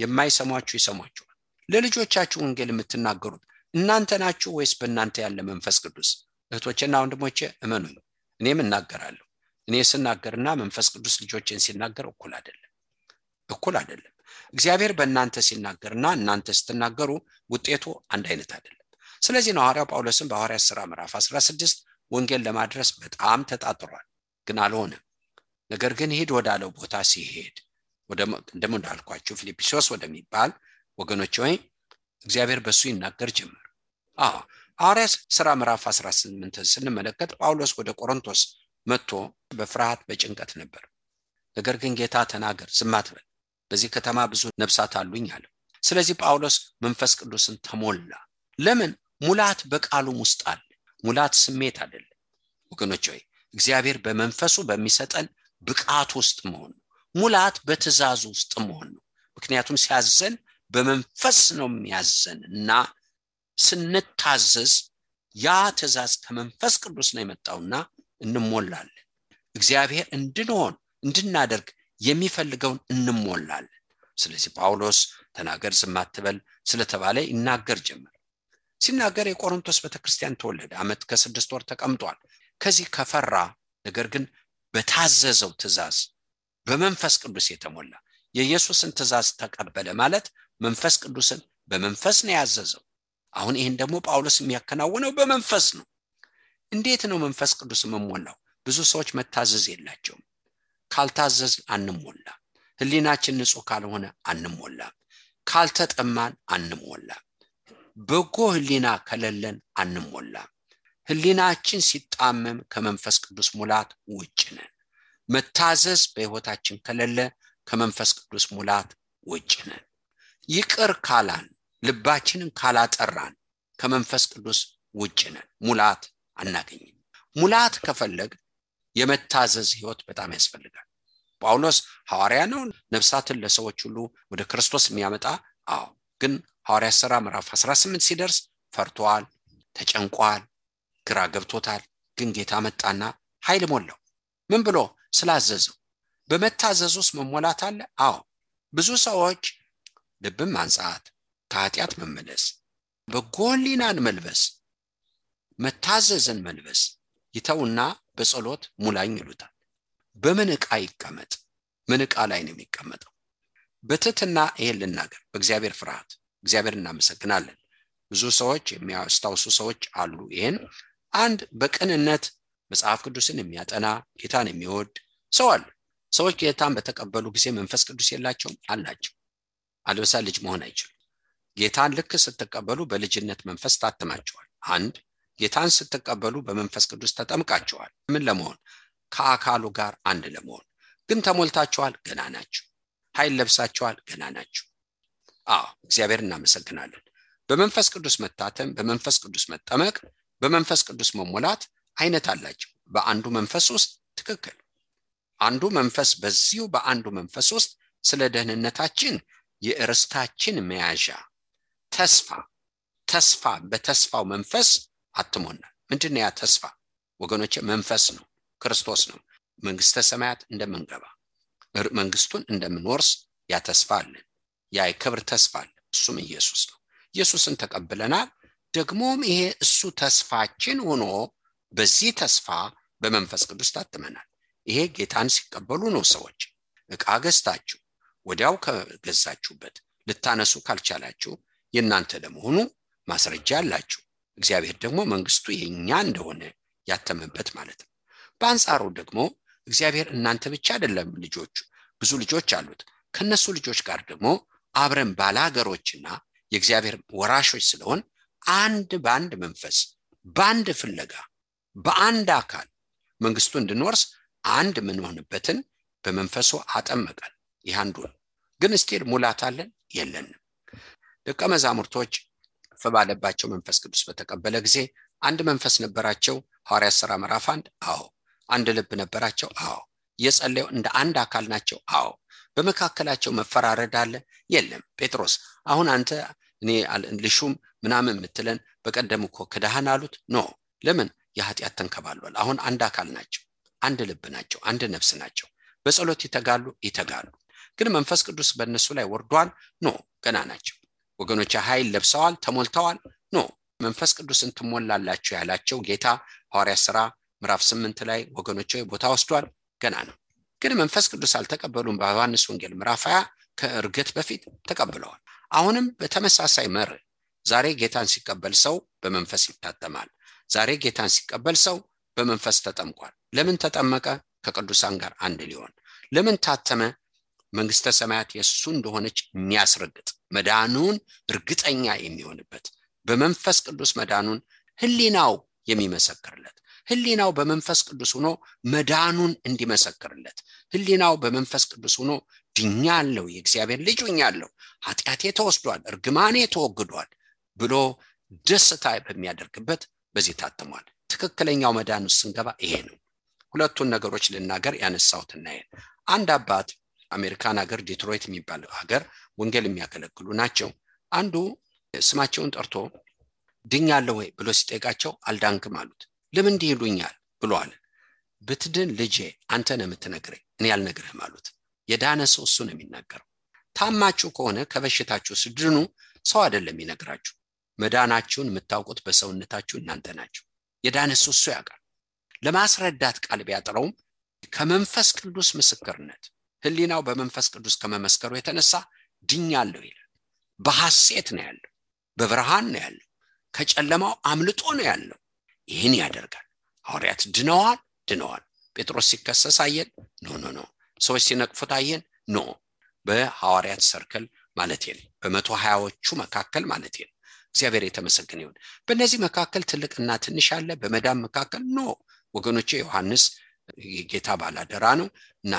የማይሰሟችሁ ይሰሟችኋል። ለልጆቻችሁ ወንጌል የምትናገሩት እናንተ ናችሁ ወይስ በእናንተ ያለ መንፈስ ቅዱስ? እህቶቼና ወንድሞቼ እመኑኝ፣ እኔም እናገራለሁ። እኔ ስናገርና መንፈስ ቅዱስ ልጆችን ሲናገር እኩል አይደለም። እግዚአብሔር በእናንተ ሲናገርና እናንተ ስትናገሩ ውጤቱ አንድ አይነት አይደለም። ስለዚህ ነው ሐዋርያው ጳውሎስን በሐዋርያት ሥራ ምዕራፍ 16 ወንጌል ለማድረስ በጣም ተጣጥሯል፣ ግን አልሆነም። ነገር ግን ሄድ ወዳለው ቦታ ሲሄድ እንደም እንዳልኳችሁ ፊልጵስዩስ ወደሚባል ወገኖች ሆይ እግዚአብሔር በሱ ይናገር ጀመር። ሐዋርያት ሥራ ምዕራፍ 18 ስንመለከት ጳውሎስ ወደ ቆሮንቶስ መጥቶ በፍርሃት በጭንቀት ነበር። ነገር ግን ጌታ ተናገር፣ ዝም አትበል፣ በዚህ ከተማ ብዙ ነፍሳት አሉኝ አለ። ስለዚህ ጳውሎስ መንፈስ ቅዱስን ተሞላ። ለምን? ሙላት በቃሉም ውስጥ አለ። ሙላት ስሜት አይደለም ወገኖች ሆይ፣ እግዚአብሔር በመንፈሱ በሚሰጠን ብቃት ውስጥ መሆን ነው። ሙላት በትእዛዙ ውስጥ መሆን ነው። ምክንያቱም ሲያዘን በመንፈስ ነው የሚያዘንና ስንታዘዝ ያ ትእዛዝ ከመንፈስ ቅዱስ ነው የመጣውና እንሞላለን። እግዚአብሔር እንድናደርግ የሚፈልገውን እንሞላለን። ስለዚህ ጳውሎስ ተናገር ዝም አትበል ስለተባለ ይናገር ጀመር። ሲናገር የቆሮንቶስ ቤተክርስቲያን ተወለደ። ዓመት ከ6 ወር ተቀምጧል። ከዚህ ከፈራ ነገር ግን በታዘዘው ትእዛዝ በመንፈስ ቅዱስ የተሞላ የኢየሱስን ትእዛዝ ተቀበለ ማለት መንፈስ ቅዱስን በመንፈስ ነው ያዘዘው። አሁን ይሄን ደግሞ ጳውሎስ የሚያከናውነው በመንፈስ ነው። እንዴት ነው መንፈስ ቅዱስ መሞላው? ብዙ ሰዎች መታዘዝ የላቸውም። ካልታዘዝ አንሞላ። ህሊናችን ንጹህ ካልሆነ አንሞላ። ካልተጠማን አንሞላ። በጎ ህሊና ከሌለን አንሞላ። ህሊናችን ሲጣመም ከመንፈስ ቅዱስ ሙላት ውጭ ነን። መታዘዝ በህይወታችን ከሌለ ከመንፈስ ቅዱስ ሙላት ውጭ ነን። ይቅር ካላን ልባችንን ካላጠራን ከመንፈስ ቅዱስ ውጭ ነን። ሙላት አናገኝም። ሙላት ከፈለግ የመታዘዝ ህይወት በጣም ያስፈልጋል። ጳውሎስ ሐዋርያ ነው፣ ነፍሳትን ለሰዎች ሁሉ ወደ ክርስቶስ የሚያመጣ። ግን ሐዋርያት ሥራ ምዕራፍ 18 ሲደርስ ፈርቷል፣ ተጨንቋል፣ ግራ ገብቶታል። ግን ጌታ መጣና ኃይል ሞላው። ምን ብሎ? ስላዘዘው። በመታዘዝ ውስጥ መሞላት አለ። ብዙ ሰዎች ልብን ማንጻት፣ ከኃጢአት መመለስ፣ በጎ ህሊናን መልበስ፣ መታዘዝን መልበስ ይተውና በጸሎት ሙላኝ ይሉታል። በምን ዕቃ ይቀመጥ? ምን ዕቃ ላይ ነው የሚቀመጠው? በትህትና ይሄን ልናገር፣ በእግዚአብሔር ፍርሃት እግዚአብሔር እናመሰግናለን። ብዙ ሰዎች የሚያስታውሱ ሰዎች አሉ። ይሄን አንድ በቅንነት መጽሐፍ ቅዱስን የሚያጠና ጌታን የሚወድ ሰው አለ። ሰዎች ጌታን በተቀበሉ ጊዜ መንፈስ ቅዱስ የላቸውም? አላቸው። አለበሳ ልጅ መሆን አይችሉም። ጌታን ልክ ስትቀበሉ በልጅነት መንፈስ ታትማቸዋል። አንድ ጌታን ስትቀበሉ በመንፈስ ቅዱስ ተጠምቃቸዋል። ምን ለመሆን? ከአካሉ ጋር አንድ ለመሆን። ግን ተሞልታቸዋል? ገና ናቸው። ኃይል ለብሳቸዋል? ገና ናቸው። እግዚአብሔር እናመሰግናለን። በመንፈስ ቅዱስ መታተም፣ በመንፈስ ቅዱስ መጠመቅ፣ በመንፈስ ቅዱስ መሞላት አይነት አላቸው። በአንዱ መንፈስ ውስጥ ትክክል። አንዱ መንፈስ በዚሁ በአንዱ መንፈስ ውስጥ ስለ ደህንነታችን የርስታችን መያዣ ተስፋ በተስፋው መንፈስ አትሞናል። ምንድነው ያ ተስፋ ወገኖቼ? መንፈስ ነው፣ ክርስቶስ ነው። መንግስተ ሰማያት እንደምንገባ መንግስቱን እንደምንወርስ ያ ተስፋ አለን። ያ የክብር ተስፋ አለ። እሱም ኢየሱስ ነው። ኢየሱስን ተቀብለናል። ደግሞም ይሄ እሱ ተስፋችን ሆኖ በዚህ ተስፋ በመንፈስ ቅዱስ ታትመናል። ይሄ ጌታን ሲቀበሉ ነው። ሰዎች ዕቃ ገዝታችሁ ወዲያው ከገዛችሁበት ልታነሱ ካልቻላችሁ የእናንተ ለመሆኑ ማስረጃ አላችሁ። እግዚአብሔር ደግሞ መንግስቱ የኛ እንደሆነ ያተመበት ማለት ነው። በአንጻሩ ደግሞ እግዚአብሔር እናንተ ብቻ አይደለም ልጆቹ፣ ብዙ ልጆች አሉት። ከነሱ ልጆች ጋር ደግሞ አብረን ባላገሮችና የእግዚአብሔር ወራሾች ስለሆን አንድ በአንድ መንፈስ፣ በአንድ ፍለጋ፣ በአንድ አካል መንግስቱ እንድንወርስ አንድ ምንሆንበትን በመንፈሱ አጠመቀን። ይህ አንዱ ነው። ግን እስቲል ሙላት አለን? የለንም። ደቀ መዛሙርቶች ፈባለባቸው መንፈስ ቅዱስ በተቀበለ ጊዜ አንድ መንፈስ ነበራቸው። ሐዋርያት ሥራ ምዕራፍ 1 አንድ ልብ ነበራቸው። የጸለዩ እንደ አንድ አካል ናቸው። በመካከላቸው መፈራረድ አለ? የለም። ጴጥሮስ አሁን አንተ እኔ ልሹም ምናምን የምትለን በቀደም እኮ ክዳህን አሉት። ለምን? የኃጢአት ተንከባሏል። አሁን አንድ አካል ናቸው፣ አንድ ልብ ናቸው፣ አንድ ነፍስ ናቸው። በጸሎት ይተጋሉ። ግን መንፈስ ቅዱስ በእነሱ ላይ ወርዷል? ገና ናቸው። ወገኖች ኃይል ለብሰዋል፣ ተሞልተዋል? መንፈስ ቅዱስን ትሞላላችሁ ያላቸው ጌታ ሐዋርያት ሥራ ምዕራፍ 8 ላይ ወገኖች ቦታ ወስዷል? ገና ነው። ግን መንፈስ ቅዱስ አልተቀበሉም። በዮሐንስ ወንጌል ምዕራፍ 20 ከእርገት በፊት ተቀብለዋል። አሁንም በተመሳሳይ መርህ ዛሬ ጌታን ሲቀበል ሰው በመንፈስ ይታተማል። ዛሬ ጌታን ሲቀበል ሰው በመንፈስ ተጠምቋል። ለምን ተጠመቀ? ከቅዱሳን ጋር አንድ ሊሆን። ለምን ታተመ? መንግስተ ሰማያት የሱ እንደሆነች የሚያስረግጥ መዳኑን እርግጠኛ የሚሆንበት በመንፈስ ቅዱስ መዳኑን ህሊናው የሚመሰክርለት፣ ህሊናው በመንፈስ ቅዱስ ሆኖ መዳኑን እንዲመሰክርለት፣ ህሊናው በመንፈስ ቅዱስ ሆኖ ድኛለሁ፣ የእግዚአብሔር ልጅ ሆኛለሁ፣ ኃጢአቴ ተወስዷል፣ እርግማኔ ተወግዷል ብሎ ደስታ በሚያደርግበት በዚህ ታተሟል። ትክክለኛው መዳን ውስጥ ስንገባ ይሄ ነው። ሁለቱን ነገሮች ልናገር ያነሳሁትና አንድ አባት አሜሪካን ሀገር ዲትሮይት የሚባል ሀገር ወንጌል የሚያገለግሉ ናቸው። አንዱ ስማቸውን ጠርቶ ድኛለሁ ወይ ብሎ ሲጠይቃቸው አልዳንክም አሉት። ለምን ይሉኛል ብሎ አለ። ብትድን ልጄ አንተ ነህ የምትነግረኝ፣ እኔ አልነግርህም አሉት። የዳነ ሰው እሱ ነው የሚናገረው። ታማችሁ ከሆነ ከበሽታችሁ ስድኑ ሰው አይደለም ይነግራችሁ። መዳናችሁን የምታውቁት በሰውነታችሁ እናንተ ናችሁ። የዳነ ሰው እሱ ያውቃል። ለማስረዳት ቃል ቢያጥረውም ከመንፈስ ቅዱስ ምስክርነት ህሊናው በመንፈስ ቅዱስ ከመመስከሩ የተነሳ ድኛለሁ ይላል። በሐሴት ነው ያለው፣ በብርሃን ነው ያለው፣ ከጨለማው አምልጦ ነው ያለው። ይህን ያደርጋል። ሐዋርያት ድነዋል። ጴጥሮስ ሲከሰስ አየን? ኖ። ሰዎች ሲነቅፉት አየን? ኖ። በሐዋርያት ሰርክል ማለት ነው፣ በ120ዎቹ መካከል ማለት ነው። እግዚአብሔር የተመሰገነ ይሁን። በእነዚህ መካከል ትልቅና ትንሽ አለ። በመዳም መካከል ኖ ወገኖቼ። ዮሐንስ የጌታ ባላደራ ነው እና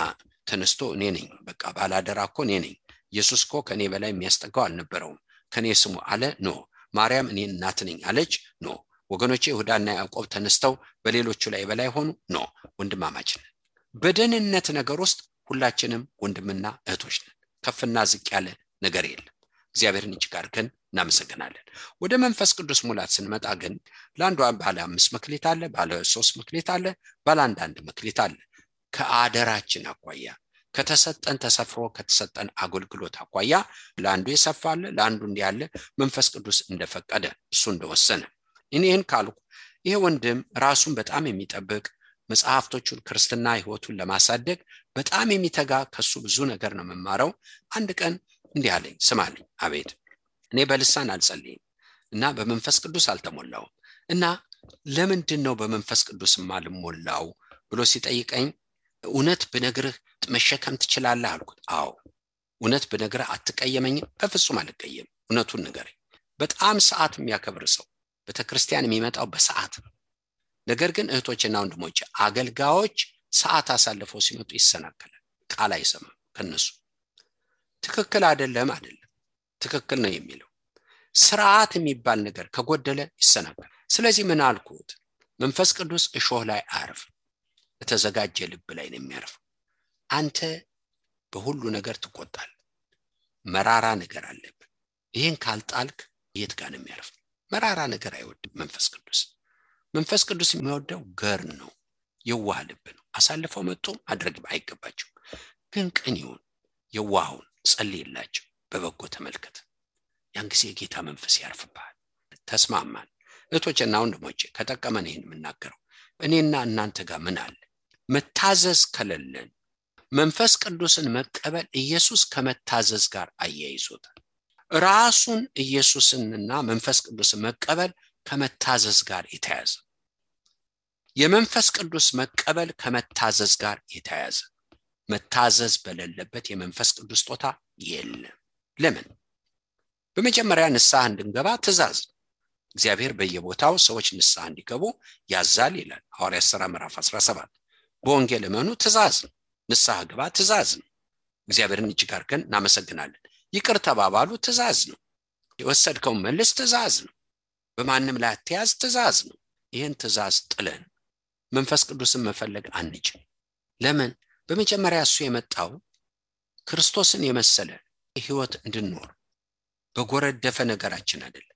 ተነስቶ እኔ ነኝ፣ በቃ ባላደራ እኮ እኔ ነኝ፣ ኢየሱስ እኮ ከኔ በላይ የሚያስጠጋው አልነበረውም፣ ከኔ ስሙ አለ። ኖ። ማርያም እኔ እናት ነኝ አለች። ኖ ወገኖቼ። ይሁዳና ያዕቆብ ተነስተው በሌሎቹ ላይ በላይ ሆኑ። ኖ። ወንድማማች ነን። በደህንነት ነገር ውስጥ ሁላችንም ወንድምና እህቶች ነን። ከፍና ዝቅ ያለ ነገር የለም። እግዚአብሔርን እጅግ አድርገን እናመሰግናለን። ወደ መንፈስ ቅዱስ ሙላት ስንመጣ ግን ለአንዱ ባለ 5 መክሊት አለ፣ ባለ 3 መክሊት አለ፣ ባለ 1 መክሊት አለ። ከአደራችን አኳያ ከተሰጠን ተሰፍሮ ከተሰጠን አገልግሎት አኳያ ለአንዱ የሰፋለ፣ ለአንዱ እንዲያለ መንፈስ ቅዱስ እንደፈቀደ እሱ እንደወሰነ። እኔን ካልኩ ይሄ ወንድም ራሱን በጣም የሚጠብቅ መጽሐፍቶቹን ክርስትና ህይወቱን ለማሳደግ በጣም የሚተጋ ከሱ ብዙ ነገር ነው መማረው። አንድ ቀን እንዲህ አለኝ፣ ስማልኝ። አቤት። እኔ በልሳን አልጸልይም እና በመንፈስ ቅዱስ አልተሞላውም እና ለምንድን ነው በመንፈስ ቅዱስ ማልሞላው ብሎ ሲጠይቀኝ እውነት ብነግርህ መሸከም ትችላለህ አልኩት። አዎ። እውነት ብነግርህ አትቀየመኝም? በፍጹም አልቀየም። እውነቱን ንገረኝ። በጣም ሰዓት የሚያከብር ሰው ቤተክርስቲያን የሚመጣው በሰዓት ነው። ነገር ግን እህቶችና ወንድሞች አገልጋዮች ሰዓት አሳልፈው ሲመጡ ይሰናከላል። ቃል አይሰማም ከነሱ። ትክክል አይደለም፣ ትክክል ነው የሚለው ስርዓት የሚባል ነገር ከጎደለ ይሰናከላል። ስለዚህ ምን አልኩት? መንፈስ ቅዱስ እሾህ ላይ አያርፍ፣ የተዘጋጀ ልብ ላይ ነው የሚያርፈው። አንተ በሁሉ ነገር ትቆጣል፣ መራራ ነገር አለብህ። ይህን ካልጣልክ የት ጋር ነው የሚያርፈው? መራራ ነገር አይወድም መንፈስ ቅዱስ። መንፈስ ቅዱስ የሚወደው ገር ነው፣ የዋህ ልብ ነው። አሳልፈው መጥቶ ማድረግ አይገባቸው፣ ግን ቅን ይሁን፣ የዋሁን ጸልይላቸው፣ በበጎ ተመልከት። ያን ጊዜ የጌታ መንፈስ ያርፍብሃል። ተስማማን? እህቶችና ወንድሞቼ ከጠቀመን ይህን የምናገረው እኔና እናንተ ጋር ምን አለ? መታዘዝ ከሌለን መንፈስ ቅዱስን መቀበል ኢየሱስ ከመታዘዝ ጋር አያይዞታል። ራሱን ኢየሱስንና መንፈስ ቅዱስን መቀበል ከመታዘዝ ጋር የተያያዘ፣ የመንፈስ ቅዱስ መቀበል ከመታዘዝ ጋር የተያያዘ። መታዘዝ በሌለበት የመንፈስ ቅዱስ ስጦታ የለም። ለምን? በመጀመሪያ ንስሐ እንድንገባ ትእዛዝ። እግዚአብሔር በየቦታው ሰዎች ንስሐ እንዲገቡ ያዛል ይላል ሐዋርያት ሥራ ምዕራፍ 17። በወንጌል እመኑ ትእዛዝ ነው። ንስሐ ግባ ትእዛዝ ነው። እግዚአብሔርን እጅግ አድርገን እናመሰግናለን። ይቅር ተባባሉ ትእዛዝ ነው። የወሰድከውን መልስ ትእዛዝ ነው። በማንም ላይ አትያዝ ትእዛዝ ነው። ይህን ትእዛዝ ጥለን መንፈስ ቅዱስን መፈለግ አንችል። ለምን? በመጀመሪያ እሱ የመጣው ክርስቶስን የመሰለ ህይወት እንድንኖር በጎረደፈ ነገራችን አይደለም።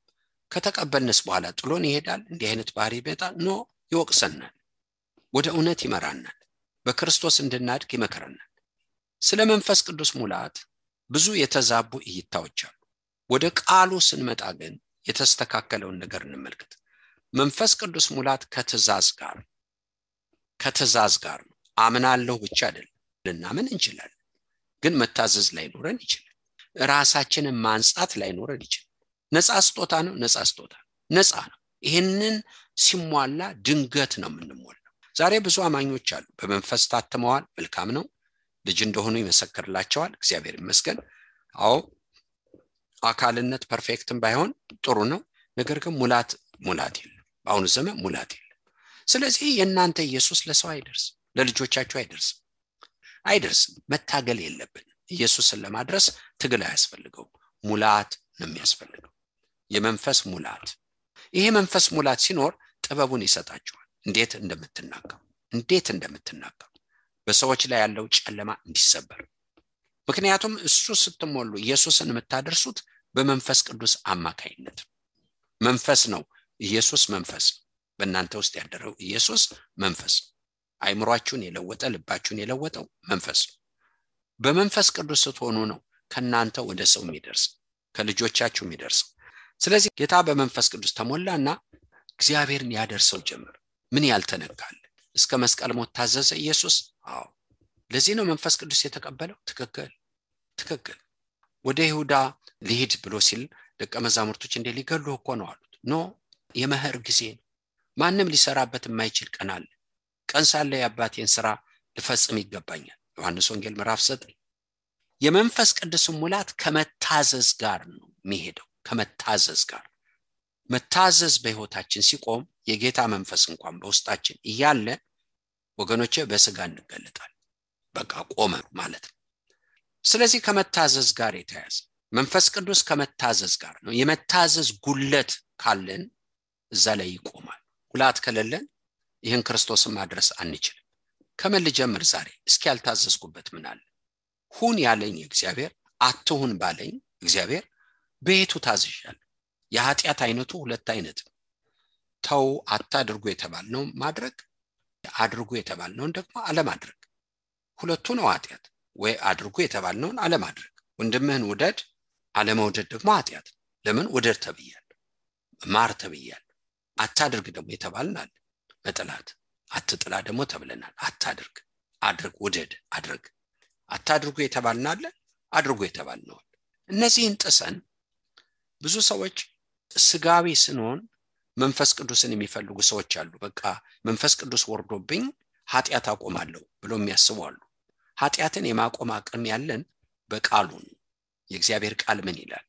ከተቀበልንስ በኋላ ጥሎን ይሄዳል? እንዲህ አይነት ባህሪ ይመጣል? ኖ፣ ይወቅሰናል፣ ወደ እውነት ይመራናል፣ በክርስቶስ እንድናድግ ይመከረናል። ስለ መንፈስ ቅዱስ ሙላት ብዙ የተዛቡ እይታዎች አሉ። ወደ ቃሉ ስንመጣ ግን የተስተካከለውን ነገር እንመልከት። መንፈስ ቅዱስ ሙላት ከትእዛዝ ጋር ነው። አምናለሁ ብቻ አይደለም፣ ልናምን እንችላለን፣ ግን መታዘዝ ላይ ኖረን ይችላል። ራሳችንን ማንጻት ላይ ኖረን ይችላል። ነፃ ስጦታ ነው፣ ነፃ ነው። ይህንን ሲሟላ ድንገት ነው የምንሞላው። ዛሬ ብዙ አማኞች አሉ፣ በመንፈስ ታትመዋል፣ መልካም ነው፣ ልጅ እንደሆኑ ይመሰክርላቸዋል፣ እግዚአብሔር ይመስገን። አዎ አካልነት ፐርፌክትም ባይሆን ጥሩ ነው። ነገር ግን ሙላት የለም። በአሁኑ ዘመን ሙላት የለም። ስለዚህ የእናንተ ኢየሱስ ለሰው አይደርስም፣ ለልጆቻችሁ አይደርስም። መታገል የለብን። ኢየሱስን ለማድረስ ትግል አያስፈልገውም፣ ሙላት ነው የሚያስፈልገው፣ የመንፈስ ሙላት። ይሄ መንፈስ ሙላት ሲኖር ጥበቡን ይሰጣችኋል፣ እንዴት እንደምትናገሩ በሰዎች ላይ ያለው ጨለማ እንዲሰበር። ምክንያቱም እሱ ስትሞሉ ኢየሱስን የምታደርሱት በመንፈስ ቅዱስ አማካይነት። መንፈስ ነው፣ ኢየሱስ መንፈስ ነው። በእናንተ ውስጥ ያደረው ኢየሱስ መንፈስ ነው። አይምሯችሁን የለወጠ ልባችሁን የለወጠው መንፈስ ነው። በመንፈስ ቅዱስ ስትሆኑ ነው ከናንተ ወደ ሰው የሚደርስ፣ ከልጆቻችሁ የሚደርስ። ስለዚህ ጌታ በመንፈስ ቅዱስ ተሞላና እግዚአብሔርን ያደርሰው ጀመር። ምን ያልተነካለ እስከ መስቀል ሞት ታዘዘ ኢየሱስ። አዎ፣ ለዚህ ነው መንፈስ ቅዱስ የተቀበለው። ትክክል። ወደ ይሁዳ ሊሄድ ብሎ ሲል ደቀ መዛሙርቶች እንደ ሊገሉ እኮ ነው አሉት። ኖ የመኸር ጊዜ ነው። ማንም ሊሰራበት የማይችል ቀን አለ። ቀን ሳለ የአባቴን ሥራ ልፈጽም ይገባኛል። ዮሐንስ ወንጌል ምዕራፍ 9። የመንፈስ ቅዱስ ሙላት ከመታዘዝ ጋር ነው የሚሄደው። ከመታዘዝ ጋር መታዘዝ በሕይወታችን ሲቆም የጌታ መንፈስ እንኳን በውስጣችን እያለ ወገኖቼ በስጋ እንገለጣል። በቃ ቆመ ማለት ነው። ስለዚህ ከመታዘዝ ጋር የተያዘ መንፈስ ቅዱስ ከመታዘዝ ጋር ነው። የመታዘዝ ጉለት ካለን እዛ ላይ ይቆማል። ጉላት ከሌለን ይህን ክርስቶስን ማድረስ አንችልም። ከምን ልጀምር ዛሬ? እስኪ ያልታዘዝኩበት ምን አለ? ሁን ያለኝ እግዚአብሔር፣ አትሁን ባለኝ እግዚአብሔር በየቱ ታዝዣለሁ? የኃጢአት አይነቱ ሁለት አይነት ነው። ተው አታድርጉ የተባልነው ማድረግ፣ አድርጉ የተባልነውን ደግሞ አለማድረግ። ሁለቱ ነው ኃጢአት። ወይ አድርጉ የተባልነውን አለማድረግ። ወንድምህን ውደድ፣ አለመውደድ ደግሞ ኃጢአት። ለምን? ውደድ ተብያለሁ፣ ማር ተብያለሁ። አታድርግ ደግሞ የተባልናል መጥላት። አትጥላ ደግሞ ተብለናል። አታድርግ፣ አድርግ፣ ውደድ፣ አድርግ። አታድርጉ የተባልናል፣ አድርጉ የተባልነው። እነዚህን ጥሰን ብዙ ሰዎች ስጋዊ ስንሆን መንፈስ ቅዱስን የሚፈልጉ ሰዎች አሉ። በቃ መንፈስ ቅዱስ ወርዶብኝ ኃጢአት አቆማለሁ ብሎ የሚያስቡ አሉ። ኃጢአትን የማቆም አቅም ያለን በቃሉ ነው። የእግዚአብሔር ቃል ምን ይላል?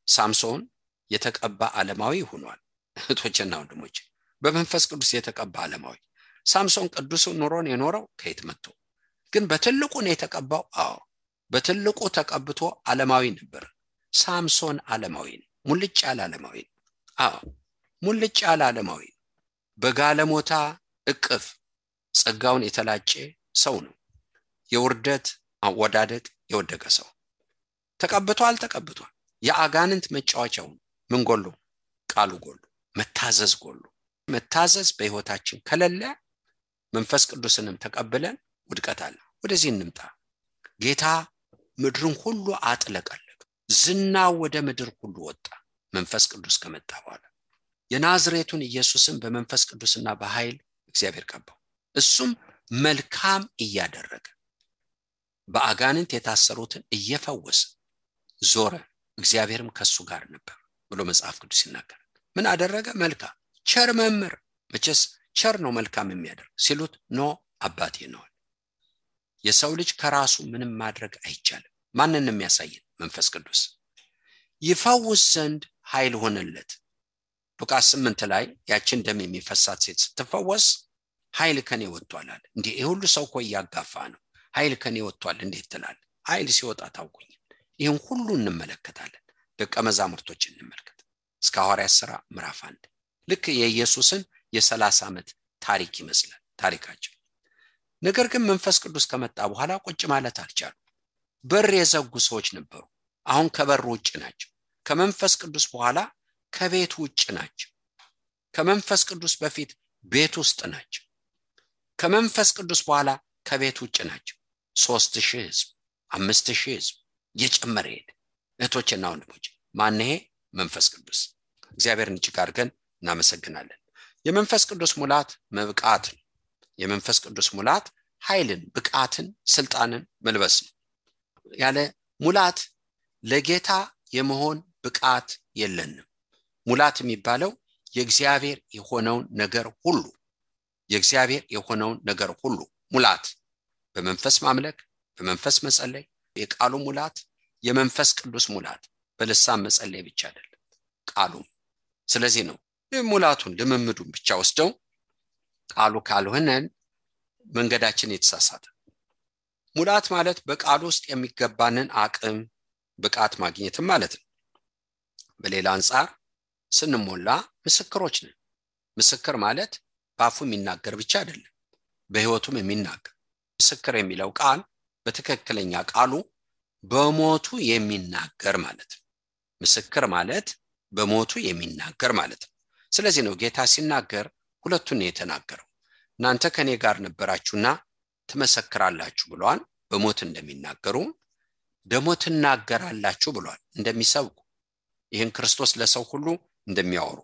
ሳምሶን የተቀባ ዓለማዊ ሆኗል። እህቶችና ወንድሞች፣ በመንፈስ ቅዱስ የተቀባ ዓለማዊ። ሳምሶን ቅዱስ ኑሮን የኖረው ከየት መጥቶ? ግን በትልቁ ነው የተቀባው። አዎ በትልቁ ተቀብቶ ዓለማዊ ነበር። ሳምሶን ዓለማዊ ነው። ሙልጭ ያለ ዓለማዊ ነው። አዎ ሙልጭ ያለ ዓለማዊ ነው። በጋለሞታ እቅፍ ጸጋውን የተላጨ ሰው ነው። የውርደት አወዳደቅ የወደቀ ሰው ተቀብቷል። የአጋንንት መጫወቻው ምን ጎሎ? ቃሉ ጎሎ፣ መታዘዝ ጎሎ። መታዘዝ በሕይወታችን ከሌለ መንፈስ ቅዱስንም ተቀብለን ውድቀት አለ። ወደዚህ እንምጣ። ጌታ ምድርን ሁሉ አጥለቀለቀ። ዝናው ወደ ምድር ሁሉ ወጣ መንፈስ ቅዱስ ከመጣ በኋላ። የናዝሬቱን ኢየሱስን በመንፈስ ቅዱስና በኃይል እግዚአብሔር ቀባው። እሱም መልካም እያደረገ በአጋንንት የታሰሩትን እየፈወሰ ዞረ። እግዚአብሔርም ከሱ ጋር ነበር ብሎ መጽሐፍ ቅዱስ ይናገራል። ምን አደረገ? መልካም። ቸር መምህር። መቼስ ቸር ነው መልካም የሚያደርግ ሲሉት ኖ አባቴ ነው። የሰው ልጅ ከራሱ ምንም ማድረግ አይቻልም። ማንንም የሚያሳየን መንፈስ ቅዱስ። ይፈውስ ዘንድ ኃይል ሆነለት። ሉቃስ 8 ላይ ያችን ደም የሚፈሳት ሴት ስትፈወስ ኃይል ከኔ ወጥቷል አለ። እንዴ ይሄ ሁሉ ሰው እኮ እያጋፋ ነው። ኃይል ከኔ ወጥቷል እንዴት ትላለህ? ኃይል ሲወጣ ታውቁኝ። ይህን ሁሉ እንመለከታለን። ደቀ መዛሙርቶችን እንመልከት። እስከ ሐዋርያት ሥራ ምዕራፍ 1 ልክ የኢየሱስን የ30 ዓመት ታሪክ ይመስላል ታሪካቸው። ነገር ግን መንፈስ ቅዱስ ከመጣ በኋላ ቁጭ ማለት አልቻሉ። በር የዘጉ ሰዎች ነበሩ። አሁን ከበር ውጭ ናቸው። ከመንፈስ ቅዱስ በኋላ ከቤት ውጭ ናቸው። ከመንፈስ ቅዱስ በፊት ቤት ውስጥ ናቸው። ከመንፈስ ቅዱስ በኋላ ከቤት ውጭ ናቸው። 3000 ሕዝብ 5000 ሕዝብ እየጨመረ ሄደ። እህቶችና ወንድሞች ማን ይሄ? መንፈስ ቅዱስ። እግዚአብሔርን እጅግ አድርገን እናመሰግናለን። የመንፈስ ቅዱስ ሙላት መብቃት ነው። የመንፈስ ቅዱስ ሙላት ኃይልን፣ ብቃትን፣ ስልጣንን መልበስ ነው። ያለ ሙላት ለጌታ የመሆን ብቃት የለንም። ሙላት የሚባለው የእግዚአብሔር የሆነውን ነገር ሁሉ ሙላት፣ በመንፈስ ማምለክ፣ በመንፈስ መጸለይ፣ የቃሉ ሙላት፣ የመንፈስ ቅዱስ ሙላት። በልሳን መጸለይ ብቻ አይደለም ቃሉም። ስለዚህ ነው ሙላቱን ልምምዱን ብቻ ወስደው ቃሉ ካልሆነን መንገዳችን የተሳሳተ። ሙላት ማለት በቃሉ ውስጥ የሚገባንን አቅም ብቃት ማግኘትም ማለት ነው። በሌላ አንፃር ስንሞላ ምስክሮች ነን። ምስክር ማለት በአፉ የሚናገር ብቻ አይደለም፣ በሕይወቱም የሚናገር። ምስክር የሚለው ቃል በትክክለኛ ቃሉ በሞቱ የሚናገር ማለት ነው። ምስክር ማለት በሞቱ የሚናገር ማለት ነው። ስለዚህ ነው ጌታ ሲናገር ሁለቱን የተናገረው። እናንተ ከኔ ጋር ነበራችሁና ትመሰክራላችሁ ብሏል። በሞት እንደሚናገሩ ደግሞ ትናገራላችሁ ብሏል። እንደሚሰብኩ ይህን ክርስቶስ ለሰው ሁሉ እንደሚያወሩ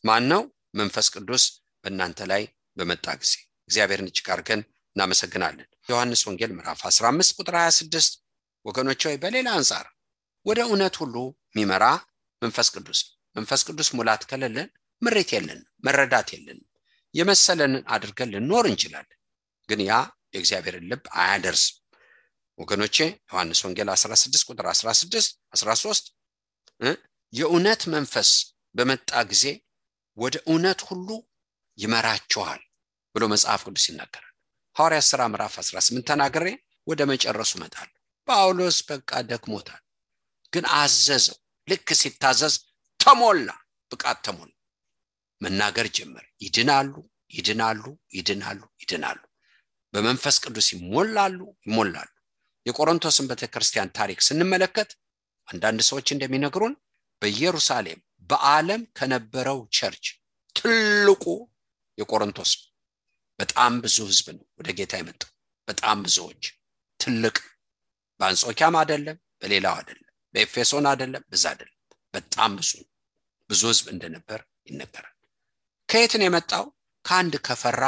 ማን ነው? መንፈስ ቅዱስ በእናንተ ላይ በመጣ ጊዜ። እግዚአብሔርን እጅግ አድርገን እናመሰግናለን። ዮሐንስ ወንጌል ምዕራፍ 15 ቁጥር 26 ወገኖች ሆይ በሌላ አንፃር ወደ እውነት ሁሉ የሚመራ መንፈስ ቅዱስ ሙላት ከሌለን ምሬት የለንም፣ መረዳት የለንም። የመሰለንን አድርገን ልንኖር እንችላለን፣ ግን ያ የእግዚአብሔርን ልብ አያደርስም። ወገኖቼ ዮሐንስ ወንጌል 16 ቁጥር 13 የእውነት መንፈስ በመጣ ጊዜ ወደ እውነት ሁሉ ይመራችኋል ብሎ መጽሐፍ ቅዱስ ይናገራል። ሐዋርያት ሥራ ምዕራፍ 18 ተናግሬ ወደ መጨረሱ እመጣለሁ። ጳውሎስ በቃ ደክሞታል፣ ግን አዘዘው። ልክ ሲታዘዝ ተሞላ፣ ብቃት ተሞላ፣ መናገር ጀመረ። ይድናሉ። በመንፈስ ቅዱስ ይሞላሉ። የቆሮንቶስን ቤተክርስቲያን ታሪክ ስንመለከት አንዳንድ ሰዎች እንደሚነግሩን በኢየሩሳሌም በዓለም ከነበረው ቸርች ትልቁ የቆሮንቶስ በጣም ብዙ ህዝብ ነው ወደ ጌታ የመጣው። በጣም ብዙዎች፣ ትልቅ በአንጾኪያም አይደለም፣ በሌላው አይደለም፣ በኤፌሶን አይደለም፣ በዛ አይደለም፣ በጣም ብዙ ህዝብ እንደነበር ይነገራል። ከየት ነው የመጣው? ከአንድ ከፈራ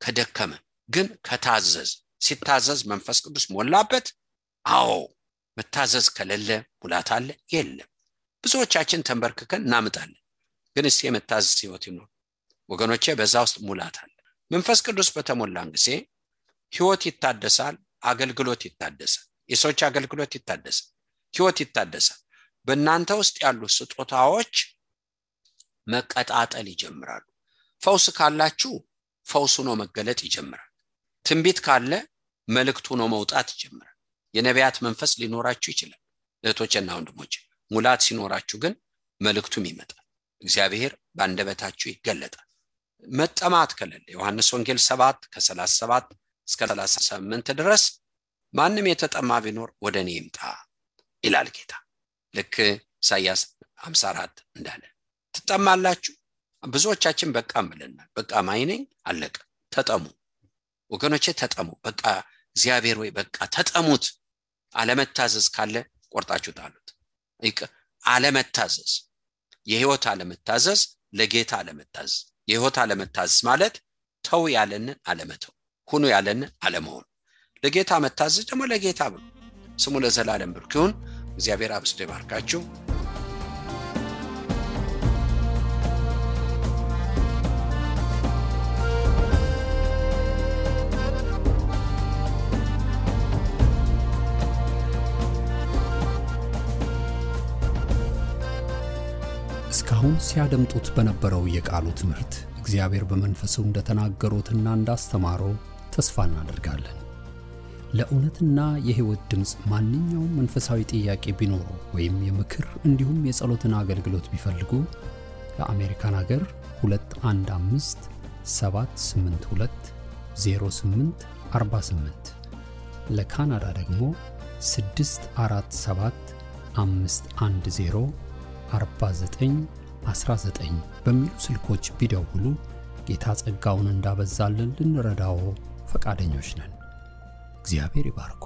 ከደከመ ግን ከታዘዝ። ሲታዘዝ መንፈስ ቅዱስ ሞላበት። አዎ መታዘዝ ከሌለ ሙላት አለ የለም። ብዙዎቻችን ተንበርክከን እናምጣለን፣ ግን እስቲ የመታዘዝ ህይወት ይኖር ወገኖቼ። በዛ ውስጥ ሙላት አለ። መንፈስ ቅዱስ በተሞላን ጊዜ ህይወት ይታደሳል፣ አገልግሎት ይታደሳል፣ የሰዎች አገልግሎት ይታደሳል፣ ህይወት ይታደሳል። በእናንተ ውስጥ ያሉ ስጦታዎች መቀጣጠል ይጀምራሉ። ፈውስ ካላችሁ ፈውሱ ነው መገለጥ ይጀምራል። ትንቢት ካለ መልእክቱ ነው መውጣት ይጀምራል። የነቢያት መንፈስ ሊኖራችሁ ይችላል እህቶቼና ወንድሞቼ። ሙላት ሲኖራችሁ ግን መልእክቱም ይመጣል፣ እግዚአብሔር በአንደበታችሁ ይገለጣል። መጠማት ከሌለ ዮሐንስ ወንጌል 7 ከ37 እስከ 38 ድረስ ማንም የተጠማ ቢኖር ወደኔ ይምጣ ይላል ጌታ። ልክ ኢሳይያስ 54 እንዳለ ትጠማላችሁ። ብዙዎቻችን በቃ ብለናል። በቃ ማይነኝ አለቀ። ተጠሙ ወገኖቼ፣ ተጠሙ። በቃ እግዚአብሔር ወይ በቃ ተጠሙት። አለመታዘዝ ካለ ቆርጣችሁ ጣሉት። አለመታዘዝ፣ የህይወት አለመታዘዝ፣ ለጌታ አለመታዘዝ። የህይወት አለመታዘዝ ማለት ተው ያለንን አለመተው፣ ሁኑ ያለንን አለመሆን። ለጌታ መታዘዝ ደግሞ ለጌታ ብሎ ስሙ ለዘላለም ብሩክ ይሁን። እግዚአብሔር አብዝቶ ይባርካችሁ። እስካሁን ሲያደምጡት በነበረው የቃሉ ትምህርት እግዚአብሔር በመንፈሱ እንደተናገሩትና እንዳስተማረው ተስፋ እናደርጋለን። ለእውነትና የህይወት ድምጽ ማንኛውም መንፈሳዊ ጥያቄ ቢኖሩ ወይም የምክር እንዲሁም የጸሎትን አገልግሎት ቢፈልጉ ለአሜሪካን ሀገር 215 782 0848 ለካናዳ ደግሞ 647 510 4919 በሚሉ ስልኮች ቢደውሉ ጌታ ጸጋውን እንዳበዛልን ልንረዳው ፈቃደኞች ነን። እግዚአብሔር ይባርኮ።